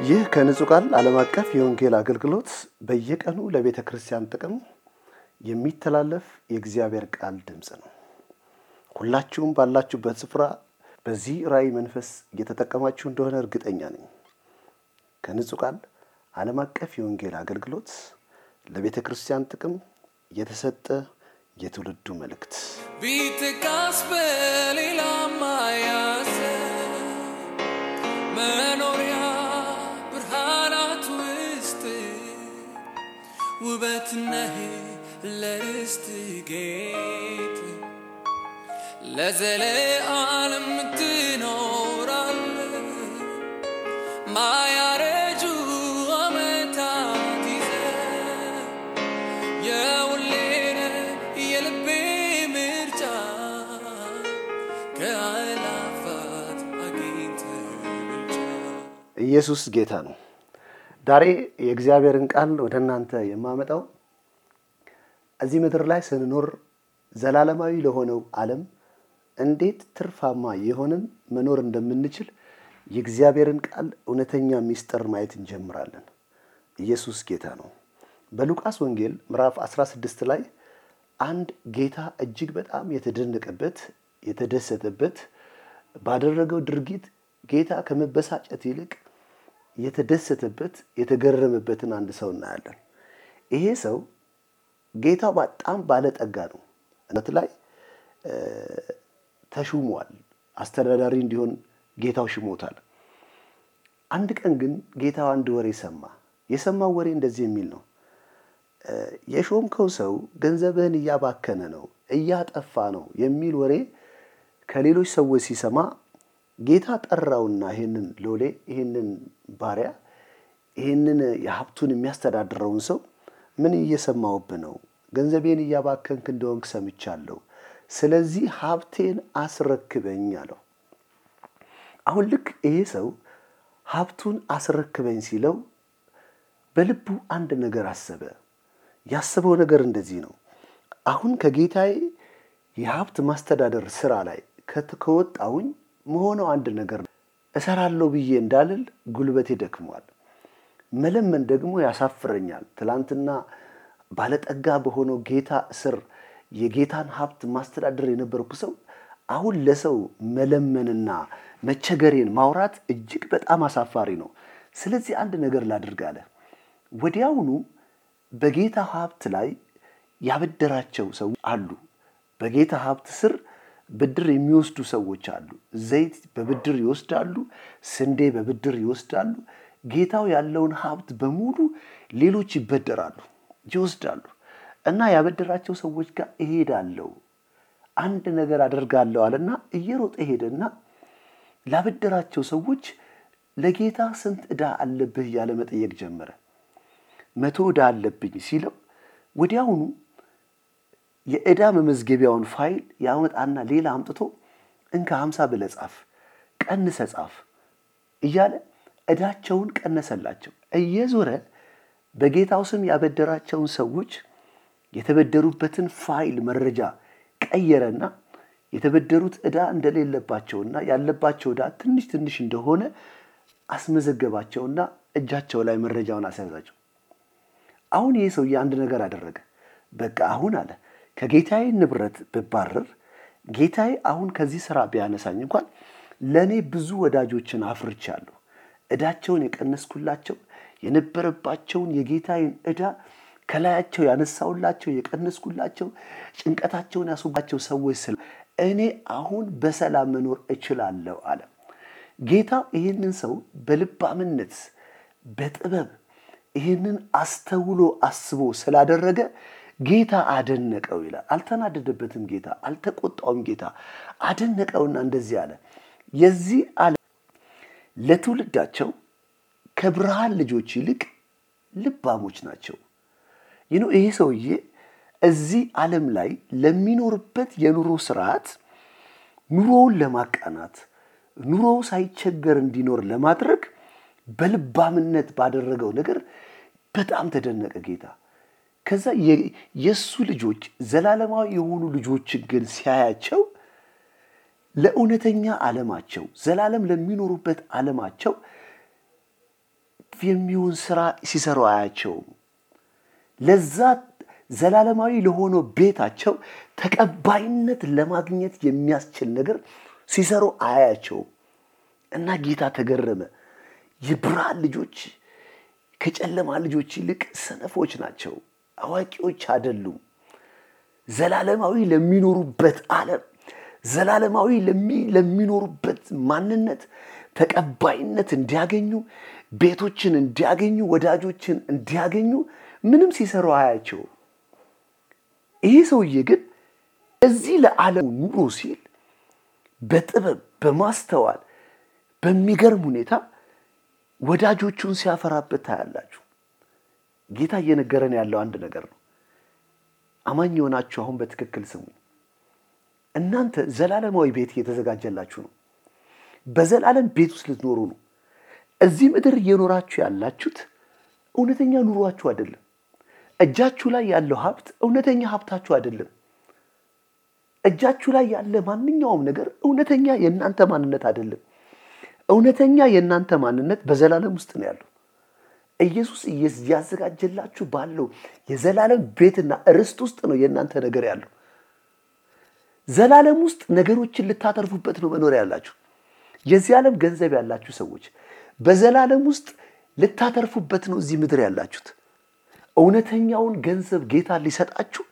ይህ ከንጹህ ቃል ዓለም አቀፍ የወንጌል አገልግሎት በየቀኑ ለቤተ ክርስቲያን ጥቅም የሚተላለፍ የእግዚአብሔር ቃል ድምጽ ነው። ሁላችሁም ባላችሁበት ስፍራ በዚህ ራእይ መንፈስ እየተጠቀማችሁ እንደሆነ እርግጠኛ ነኝ። ከንጹህ ቃል ዓለም አቀፍ የወንጌል አገልግሎት ለቤተ ክርስቲያን ጥቅም የተሰጠ የትውልዱ መልእክት ቢትካስ በሌላማ ያሰ መኖሪያ ብርሃናት ውስጥ ውበት ነህ ለርስት ጌጥ ለዘለዓለም ትኖራለህ ማያረጁ ዓመታት ይዘህ የሁሌን የልቤ ምርጫ ከአእላፋት አግኝተህ ብቻ። ኢየሱስ ጌታ ነው። ዛሬ የእግዚአብሔርን ቃል ወደ እናንተ የማመጣው እዚህ ምድር ላይ ስንኖር ዘላለማዊ ለሆነው ዓለም እንዴት ትርፋማ የሆነን መኖር እንደምንችል የእግዚአብሔርን ቃል እውነተኛ ሚስጥር ማየት እንጀምራለን። ኢየሱስ ጌታ ነው። በሉቃስ ወንጌል ምዕራፍ 16 ላይ አንድ ጌታ እጅግ በጣም የተደነቀበት የተደሰተበት ባደረገው ድርጊት ጌታ ከመበሳጨት ይልቅ የተደሰተበት የተገረመበትን አንድ ሰው እናያለን። ይሄ ሰው ጌታው በጣም ባለጠጋ ነው። እነት ላይ ተሹሟል። አስተዳዳሪ እንዲሆን ጌታው ሽሞታል። አንድ ቀን ግን ጌታው አንድ ወሬ ሰማ። የሰማው ወሬ እንደዚህ የሚል ነው። የሾምከው ሰው ገንዘብህን እያባከነ ነው፣ እያጠፋ ነው የሚል ወሬ ከሌሎች ሰዎች ሲሰማ ጌታ ጠራውና ይሄንን ሎሌ ይሄንን ባሪያ ይሄንን የሀብቱን የሚያስተዳድረውን ሰው ምን እየሰማውብህ ነው? ገንዘቤን እያባከንክ እንደሆንክ ሰምቻለሁ። ስለዚህ ሀብቴን አስረክበኝ አለው። አሁን ልክ ይሄ ሰው ሀብቱን አስረክበኝ ሲለው በልቡ አንድ ነገር አሰበ። ያሰበው ነገር እንደዚህ ነው። አሁን ከጌታዬ የሀብት ማስተዳደር ስራ ላይ ከወጣሁኝ መሆነው አንድ ነገር እሰራለሁ ብዬ እንዳልል ጉልበቴ ደክሟል። መለመን ደግሞ ያሳፍረኛል። ትላንትና ባለጠጋ በሆነው ጌታ ስር የጌታን ሀብት ማስተዳደር የነበርኩ ሰው አሁን ለሰው መለመንና መቸገሬን ማውራት እጅግ በጣም አሳፋሪ ነው። ስለዚህ አንድ ነገር ላድርግ አለ። ወዲያውኑ በጌታ ሀብት ላይ ያበደራቸው ሰዎች አሉ። በጌታ ሀብት ስር ብድር የሚወስዱ ሰዎች አሉ። ዘይት በብድር ይወስዳሉ፣ ስንዴ በብድር ይወስዳሉ። ጌታው ያለውን ሀብት በሙሉ ሌሎች ይበደራሉ፣ ይወስዳሉ። እና ያበደራቸው ሰዎች ጋር እሄዳለሁ፣ አንድ ነገር አደርጋለሁ አለና እየሮጠ ሄደና ላበደራቸው ሰዎች ለጌታ ስንት ዕዳ አለብህ እያለ መጠየቅ ጀመረ። 100 ዕዳ አለብኝ ሲለው ወዲያውኑ የዕዳ መመዝገቢያውን ፋይል ያመጣና ሌላ አምጥቶ እንካ 50 ብለህ ጻፍ፣ ቀንሰህ ጻፍ እያለ ዕዳቸውን ቀነሰላቸው። እየዞረ በጌታው ስም ያበደራቸውን ሰዎች የተበደሩበትን ፋይል መረጃ ቀየረና የተበደሩት ዕዳ እንደሌለባቸውና ያለባቸው ዕዳ ትንሽ ትንሽ እንደሆነ አስመዘገባቸውና እጃቸው ላይ መረጃውን አስያዛቸው። አሁን ይሄ ሰውዬ አንድ ነገር አደረገ። በቃ አሁን አለ ከጌታዬ ንብረት ብባረር ጌታዬ አሁን ከዚህ ስራ ቢያነሳኝ እንኳን ለኔ ብዙ ወዳጆችን አፍርቻለሁ። ዕዳቸውን የቀነስኩላቸው የነበረባቸውን የጌታዬን ዕዳ ከላያቸው ያነሳውላቸው የቀነስኩላቸው ጭንቀታቸውን ያስወባቸው ሰዎች ስለ እኔ አሁን በሰላም መኖር እችላለሁ አለ። ጌታ ይህንን ሰው በልባምነት በጥበብ ይህንን አስተውሎ አስቦ ስላደረገ ጌታ አደነቀው ይላል። አልተናደደበትም ጌታ፣ አልተቆጣውም ጌታ፣ አደነቀውና እንደዚህ አለ። የዚህ ዓለም ለትውልዳቸው ከብርሃን ልጆች ይልቅ ልባሞች ናቸው። ይሄ ሰውዬ እዚህ ዓለም ላይ ለሚኖርበት የኑሮ ስርዓት ኑሮውን ለማቃናት ኑሮው ሳይቸገር እንዲኖር ለማድረግ በልባምነት ባደረገው ነገር በጣም ተደነቀ ጌታ። ከዛ የሱ ልጆች ዘላለማዊ የሆኑ ልጆች ግን ሲያያቸው ለእውነተኛ ዓለማቸው ዘላለም ለሚኖሩበት ዓለማቸው የሚሆን ስራ ሲሰሩ አያቸው። ለዛ ዘላለማዊ ለሆነው ቤታቸው ተቀባይነት ለማግኘት የሚያስችል ነገር ሲሰሩ አያቸው እና ጌታ ተገረመ። የብርሃን ልጆች ከጨለማ ልጆች ይልቅ ሰነፎች ናቸው፣ አዋቂዎች አይደሉም። ዘላለማዊ ለሚኖሩበት ዓለም፣ ዘላለማዊ ለሚኖሩበት ማንነት ተቀባይነት እንዲያገኙ፣ ቤቶችን እንዲያገኙ፣ ወዳጆችን እንዲያገኙ ምንም ሲሰሩ አያቸው። ይሄ ሰውዬ ግን እዚህ ለዓለም ኑሮ ሲል በጥበብ በማስተዋል በሚገርም ሁኔታ ወዳጆቹን ሲያፈራበት ታያላችሁ። ጌታ እየነገረን ያለው አንድ ነገር ነው። አማኝ የሆናችሁ አሁን በትክክል ስሙ። እናንተ ዘላለማዊ ቤት እየተዘጋጀላችሁ ነው። በዘላለም ቤት ውስጥ ልትኖሩ ነው። እዚህ ምድር እየኖራችሁ ያላችሁት እውነተኛ ኑሯችሁ አይደለም። እጃችሁ ላይ ያለው ሀብት እውነተኛ ሀብታችሁ አይደለም። እጃችሁ ላይ ያለ ማንኛውም ነገር እውነተኛ የእናንተ ማንነት አይደለም። እውነተኛ የእናንተ ማንነት በዘላለም ውስጥ ነው ያለው። ኢየሱስ ያዘጋጀላችሁ ባለው የዘላለም ቤትና ርስት ውስጥ ነው የእናንተ ነገር ያለው። ዘላለም ውስጥ ነገሮችን ልታተርፉበት ነው መኖር ያላችሁ። የዚህ ዓለም ገንዘብ ያላችሁ ሰዎች በዘላለም ውስጥ ልታተርፉበት ነው እዚህ ምድር ያላችሁት። እውነተኛውን ገንዘብ ጌታ ሊሰጣችሁ፣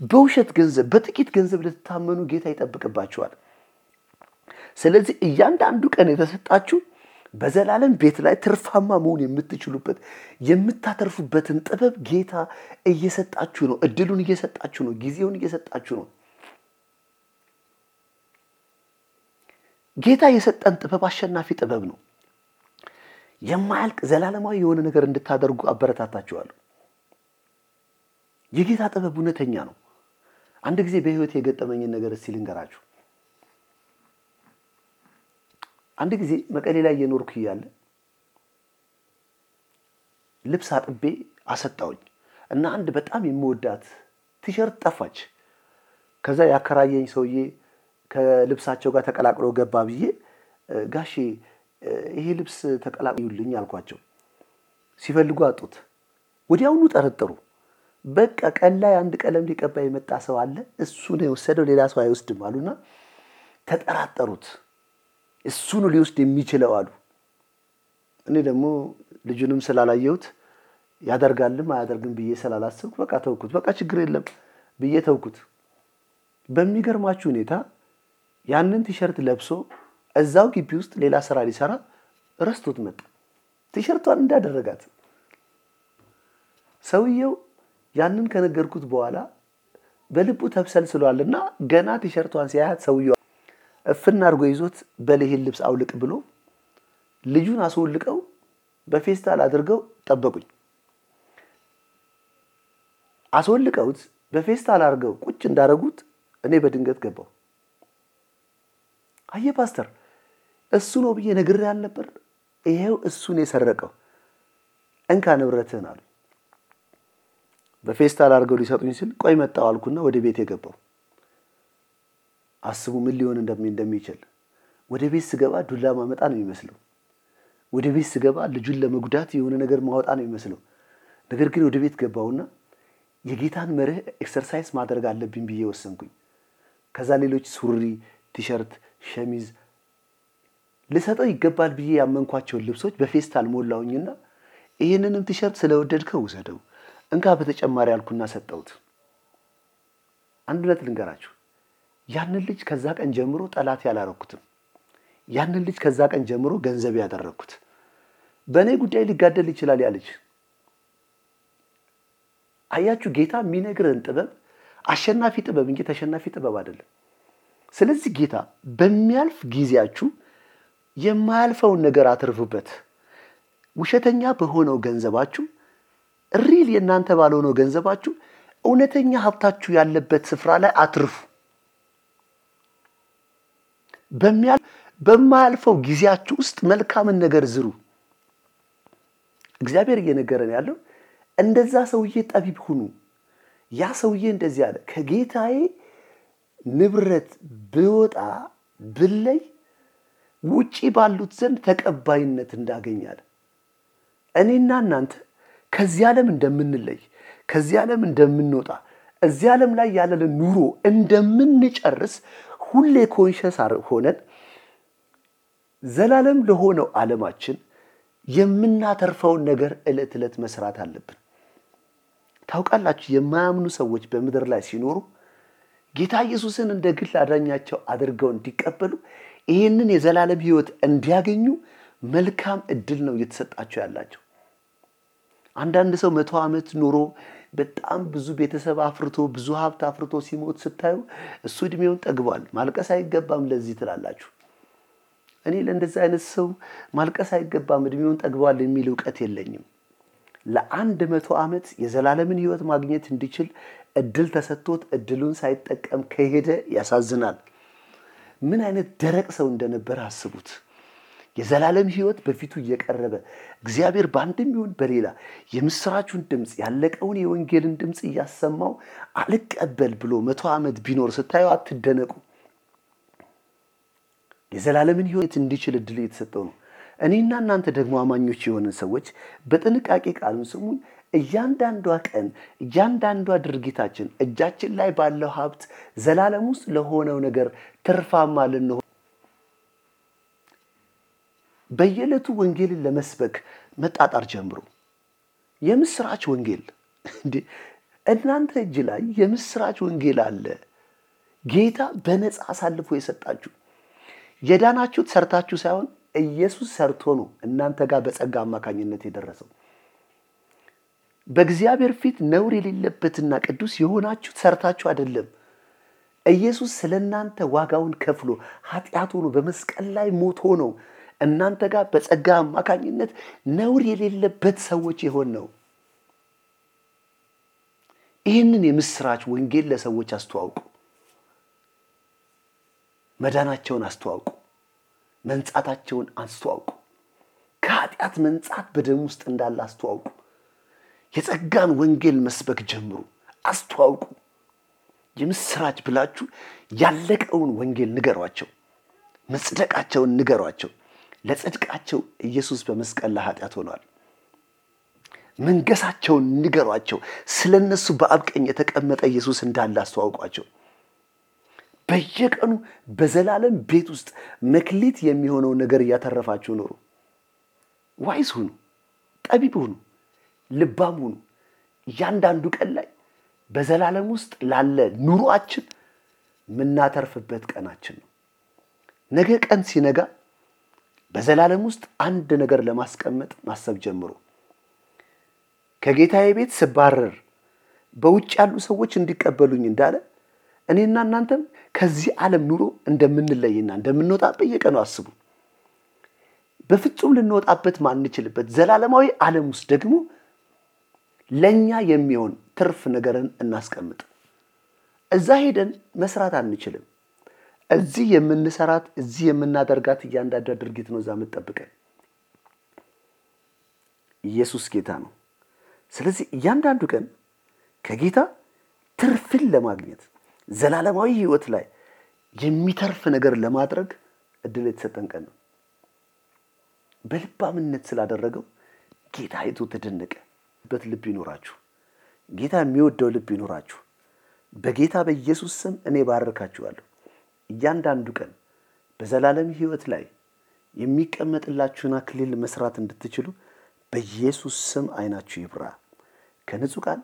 በውሸት ገንዘብ በጥቂት ገንዘብ ልትታመኑ ጌታ ይጠብቅባችኋል። ስለዚህ እያንዳንዱ ቀን የተሰጣችሁ በዘላለም ቤት ላይ ትርፋማ መሆን የምትችሉበት የምታተርፉበትን ጥበብ ጌታ እየሰጣችሁ ነው። እድሉን እየሰጣችሁ ነው። ጊዜውን እየሰጣችሁ ነው። ጌታ የሰጠን ጥበብ አሸናፊ ጥበብ ነው። የማያልቅ ዘላለማዊ የሆነ ነገር እንድታደርጉ አበረታታችኋለሁ። የጌታ ጥበብ እውነተኛ ነው። አንድ ጊዜ በህይወት የገጠመኝን ነገር እስቲ ልንገራችሁ። አንድ ጊዜ መቀሌ ላይ እየኖርኩ እያለ ልብስ አጥቤ አሰጣውኝ እና አንድ በጣም የምወዳት ቲሸርት ጠፋች። ከዛ ያከራየኝ ሰውዬ ከልብሳቸው ጋር ተቀላቅሎ ገባ ብዬ ጋሼ ይሄ ልብስ ተቀላቅሉልኝ አልኳቸው። ሲፈልጉ አጡት። ወዲያውኑ ጠረጠሩ። በቃ ቀን ላይ አንድ ቀለም ሊቀባ የመጣ ሰው አለ፣ እሱ ነው የወሰደው፣ ሌላ ሰው አይወስድም አሉና ተጠራጠሩት። እሱ ነው ሊወስድ የሚችለው አሉ። እኔ ደግሞ ልጁንም ስላላየሁት ያደርጋልም አያደርግም ብዬ ስላላሰብኩ በቃ ተውኩት። በቃ ችግር የለም ብዬ ተውኩት። በሚገርማችሁ ሁኔታ ያንን ቲሸርት ለብሶ እዛው ግቢ ውስጥ ሌላ ስራ ሊሰራ ረስቶት መጣ። ቲሸርቷን እንዳደረጋት ሰውየው ያንን ከነገርኩት በኋላ በልቡ ተብሰልስሏልና ገና ቲሸርቷን ሲያያት ሰውየው እፍና አድርጎ ይዞት በለህል ልብስ አውልቅ ብሎ ልጁን አስወልቀው በፌስታል አድርገው ጠበቁኝ። አስወልቀውት በፌስታል አድርገው ቁጭ እንዳረጉት እኔ በድንገት ገባው። አየ ፓስተር እሱ ነው ብዬ ነግሬ አልነበር? ይሄው እሱን የሰረቀው እንካ ንብረትህን አሉ። በፌስታል አድርገው ሊሰጡኝ ሲል ቆይ መጣው አልኩና ወደ ቤት የገባው። አስቡ ምን ሊሆን እንደሚችል። ወደ ቤት ስገባ ዱላ ማመጣ ነው የሚመስለው። ወደ ቤት ስገባ ልጁን ለመጉዳት የሆነ ነገር ማወጣ ነው የሚመስለው። ነገር ግን ወደ ቤት ገባውና የጌታን መርህ ኤክሰርሳይዝ ማድረግ አለብኝ ብዬ ወሰንኩኝ። ከዛ ሌሎች ሱሪ፣ ቲሸርት፣ ሸሚዝ ልሰጠው ይገባል ብዬ ያመንኳቸው ልብሶች በፌስታል ሞላውኝና ይሄንንም ቲሸርት ስለወደድከው ውሰደው እንካ በተጨማሪ አልኩና ሰጠውት። አንድነት ልንገራችሁ፣ ያንን ልጅ ከዛ ቀን ጀምሮ ጠላት ያላረኩትም። ያንን ልጅ ከዛ ቀን ጀምሮ ገንዘብ ያደረኩት። በእኔ ጉዳይ ሊጋደል ይችላል ያለች። አያችሁ ጌታ የሚነግረን ጥበብ አሸናፊ ጥበብ እንጂ ተሸናፊ ጥበብ አይደለም። ስለዚህ ጌታ በሚያልፍ ጊዜያችሁ የማያልፈውን ነገር አትርፉበት። ውሸተኛ በሆነው ገንዘባችሁ ሪል የናንተ ባልሆነው ገንዘባችሁ እውነተኛ ሀብታችሁ ያለበት ስፍራ ላይ አትርፉ። በማያልፈው ጊዜያችሁ ውስጥ መልካምን ነገር ዝሩ። እግዚአብሔር እየነገረን ያለው እንደዛ ሰውዬ ጠቢብ ሁኑ። ያ ሰውዬ እንደዚህ አለ፣ ከጌታዬ ንብረት ብወጣ ብለይ ውጪ ባሉት ዘንድ ተቀባይነት እንዳገኛለ። እኔና እናንተ ከዚህ ዓለም እንደምንለይ ከዚህ ዓለም እንደምንወጣ እዚህ ዓለም ላይ ያለን ኑሮ እንደምንጨርስ ሁሌ ኮንሸስ ሆነን ዘላለም ለሆነው ዓለማችን የምናተርፈውን ነገር ዕለት ዕለት መስራት አለብን። ታውቃላችሁ የማያምኑ ሰዎች በምድር ላይ ሲኖሩ ጌታ ኢየሱስን እንደ ግል አዳኛቸው አድርገው እንዲቀበሉ ይህንን የዘላለም ሕይወት እንዲያገኙ መልካም እድል ነው እየተሰጣቸው ያላቸው። አንዳንድ ሰው 100 ዓመት ኖሮ በጣም ብዙ ቤተሰብ አፍርቶ ብዙ ሀብት አፍርቶ ሲሞት ስታዩ እሱ እድሜውን ጠግቧል ማልቀስ አይገባም ለዚህ ትላላችሁ። እኔ ለእንደዚህ አይነት ሰው ማልቀስ አይገባም እድሜውን ጠግቧል የሚል ዕውቀት የለኝም። ለ100 ዓመት የዘላለምን ሕይወት ማግኘት እንዲችል እድል ተሰጥቶት እድሉን ሳይጠቀም ከሄደ ያሳዝናል። ምን አይነት ደረቅ ሰው እንደነበር አስቡት። የዘላለም ሕይወት በፊቱ እየቀረበ እግዚአብሔር በአንድም ይሁን በሌላ የምስራቹን ድምጽ ያለቀውን የወንጌልን ድምጽ እያሰማው አልቀበል ብሎ 100 ዓመት ቢኖር ስታዩ አትደነቁ። የዘላለምን ሕይወት እንዲችል እድል የተሰጠው ነው። እኔና እናንተ ደግሞ አማኞች የሆነን ሰዎች በጥንቃቄ ቃሉን ስሙን። እያንዳንዷ ቀን እያንዳንዷ ድርጊታችን እጃችን ላይ ባለው ሀብት ዘላለም ውስጥ ለሆነው ነገር ትርፋማ ልንሆን በየዕለቱ ወንጌልን ለመስበክ መጣጣር ጀምሩ። የምስራች ወንጌል እንዴ እናንተ እጅ ላይ የምስራች ወንጌል አለ። ጌታ በነፃ አሳልፎ የሰጣችሁ የዳናችሁት ሰርታችሁ ሳይሆን ኢየሱስ ሰርቶ ነው እናንተ ጋር በጸጋ አማካኝነት የደረሰው። በእግዚአብሔር ፊት ነውር የሌለበትና ቅዱስ የሆናችሁት ሰርታችሁ አይደለም። ኢየሱስ ስለናንተ ዋጋውን ከፍሎ ኃጢአቱን በመስቀል ላይ ሞቶ ነው እናንተ ጋር በጸጋ አማካኝነት ነውር የሌለበት ሰዎች የሆን ነው። ይህንን የምስራች ወንጌል ለሰዎች አስተዋውቁ። መዳናቸውን አስተዋውቁ። መንጻታቸውን አስተዋውቁ። ከኃጢአት መንጻት በደም ውስጥ እንዳለ አስተዋውቁ። የጸጋን ወንጌል መስበክ ጀምሩ። አስተዋውቁ። የምስራች ብላችሁ ያለቀውን ወንጌል ንገሯቸው። መጽደቃቸውን ንገሯቸው። ለጽድቃቸው ኢየሱስ በመስቀል ላይ ኃጢአት ሆኗል። መንገሳቸውን ንገሯቸው። ስለነሱ በአብ ቀኝ የተቀመጠ ኢየሱስ እንዳለ አስተዋውቋቸው። በየቀኑ በዘላለም ቤት ውስጥ መክሊት የሚሆነው ነገር እያተረፋችሁ ኖሩ። ዋይዝ ሁኑ፣ ጠቢብ ሁኑ፣ ልባም ሁኑ። እያንዳንዱ ቀን ላይ በዘላለም ውስጥ ላለ ኑሯችን ምናተርፍበት ቀናችን ነው። ነገ ቀን ሲነጋ በዘላለም ውስጥ አንድ ነገር ለማስቀመጥ ማሰብ ጀምሩ። ከጌታዬ ቤት ስባረር በውጭ ያሉ ሰዎች እንዲቀበሉኝ እንዳለ እኔና እናንተም ከዚህ ዓለም ኑሮ እንደምንለይና እንደምንወጣ በየቀኑ አስቡ። በፍጹም ልንወጣበት ማንችልበት ዘላለማዊ ዓለም ውስጥ ደግሞ ለኛ የሚሆን ትርፍ ነገርን እናስቀምጥ። እዛ ሄደን መስራት አንችልም። እዚህ የምንሰራት እዚህ የምናደርጋት እያንዳንዷ ድርጊት ነው እዛ የምትጠብቀን። ኢየሱስ ጌታ ነው። ስለዚህ እያንዳንዱ ቀን ከጌታ ትርፍን ለማግኘት ዘላለማዊ ሕይወት ላይ የሚተርፍ ነገር ለማድረግ እድል የተሰጠን ቀን ነው። በልባምነት ስላደረገው ጌታ አይቶ ተደነቀ። ልብ ይኖራችሁ። ጌታ የሚወደው ልብ ይኖራችሁ። በጌታ በኢየሱስ ስም እኔ ባርካችኋለሁ። እያንዳንዱ ቀን በዘላለም ሕይወት ላይ የሚቀመጥላችሁን አክሊል መስራት እንድትችሉ በኢየሱስ ስም አይናችሁ ይብራ። ከንጹህ ቃል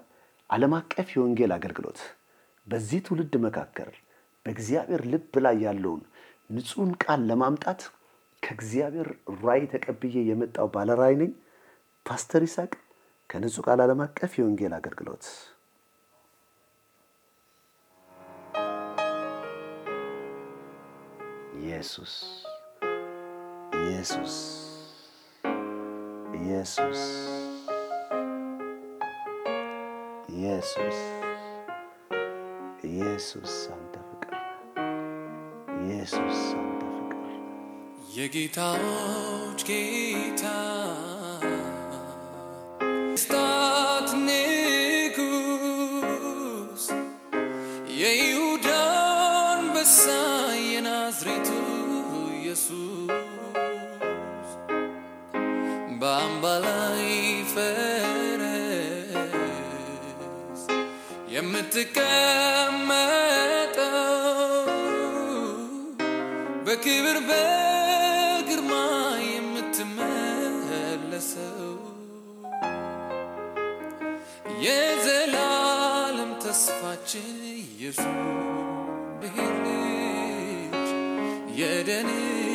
ዓለም አቀፍ የወንጌል አገልግሎት በዚህ ትውልድ መካከል በእግዚአብሔር ልብ ላይ ያለውን ንጹህን ቃል ለማምጣት ከእግዚአብሔር ራእይ ተቀብዬ የመጣው ባለራእይ ነኝ። ፓስተር ይስሐቅ ከንጹህ ቃል ዓለም አቀፍ የወንጌል አገልግሎት። ኢየሱስ ኢየሱስ ኢየሱስ ኢየሱስ ኢየሱስ አንተ ፍቅር፣ ኢየሱስ አንተ ፍቅር። የጌታዎች ጌታ ስታት ንጉስ የይሁዳ አንበሳ የናዝሬቱ ኢየሱስ በአምባ ላይ የምትቀመጠው በክብር በግርማ የምትመለሰው የዘላለም ተስፋችን ኢየሱስ ልጅ የደህንነት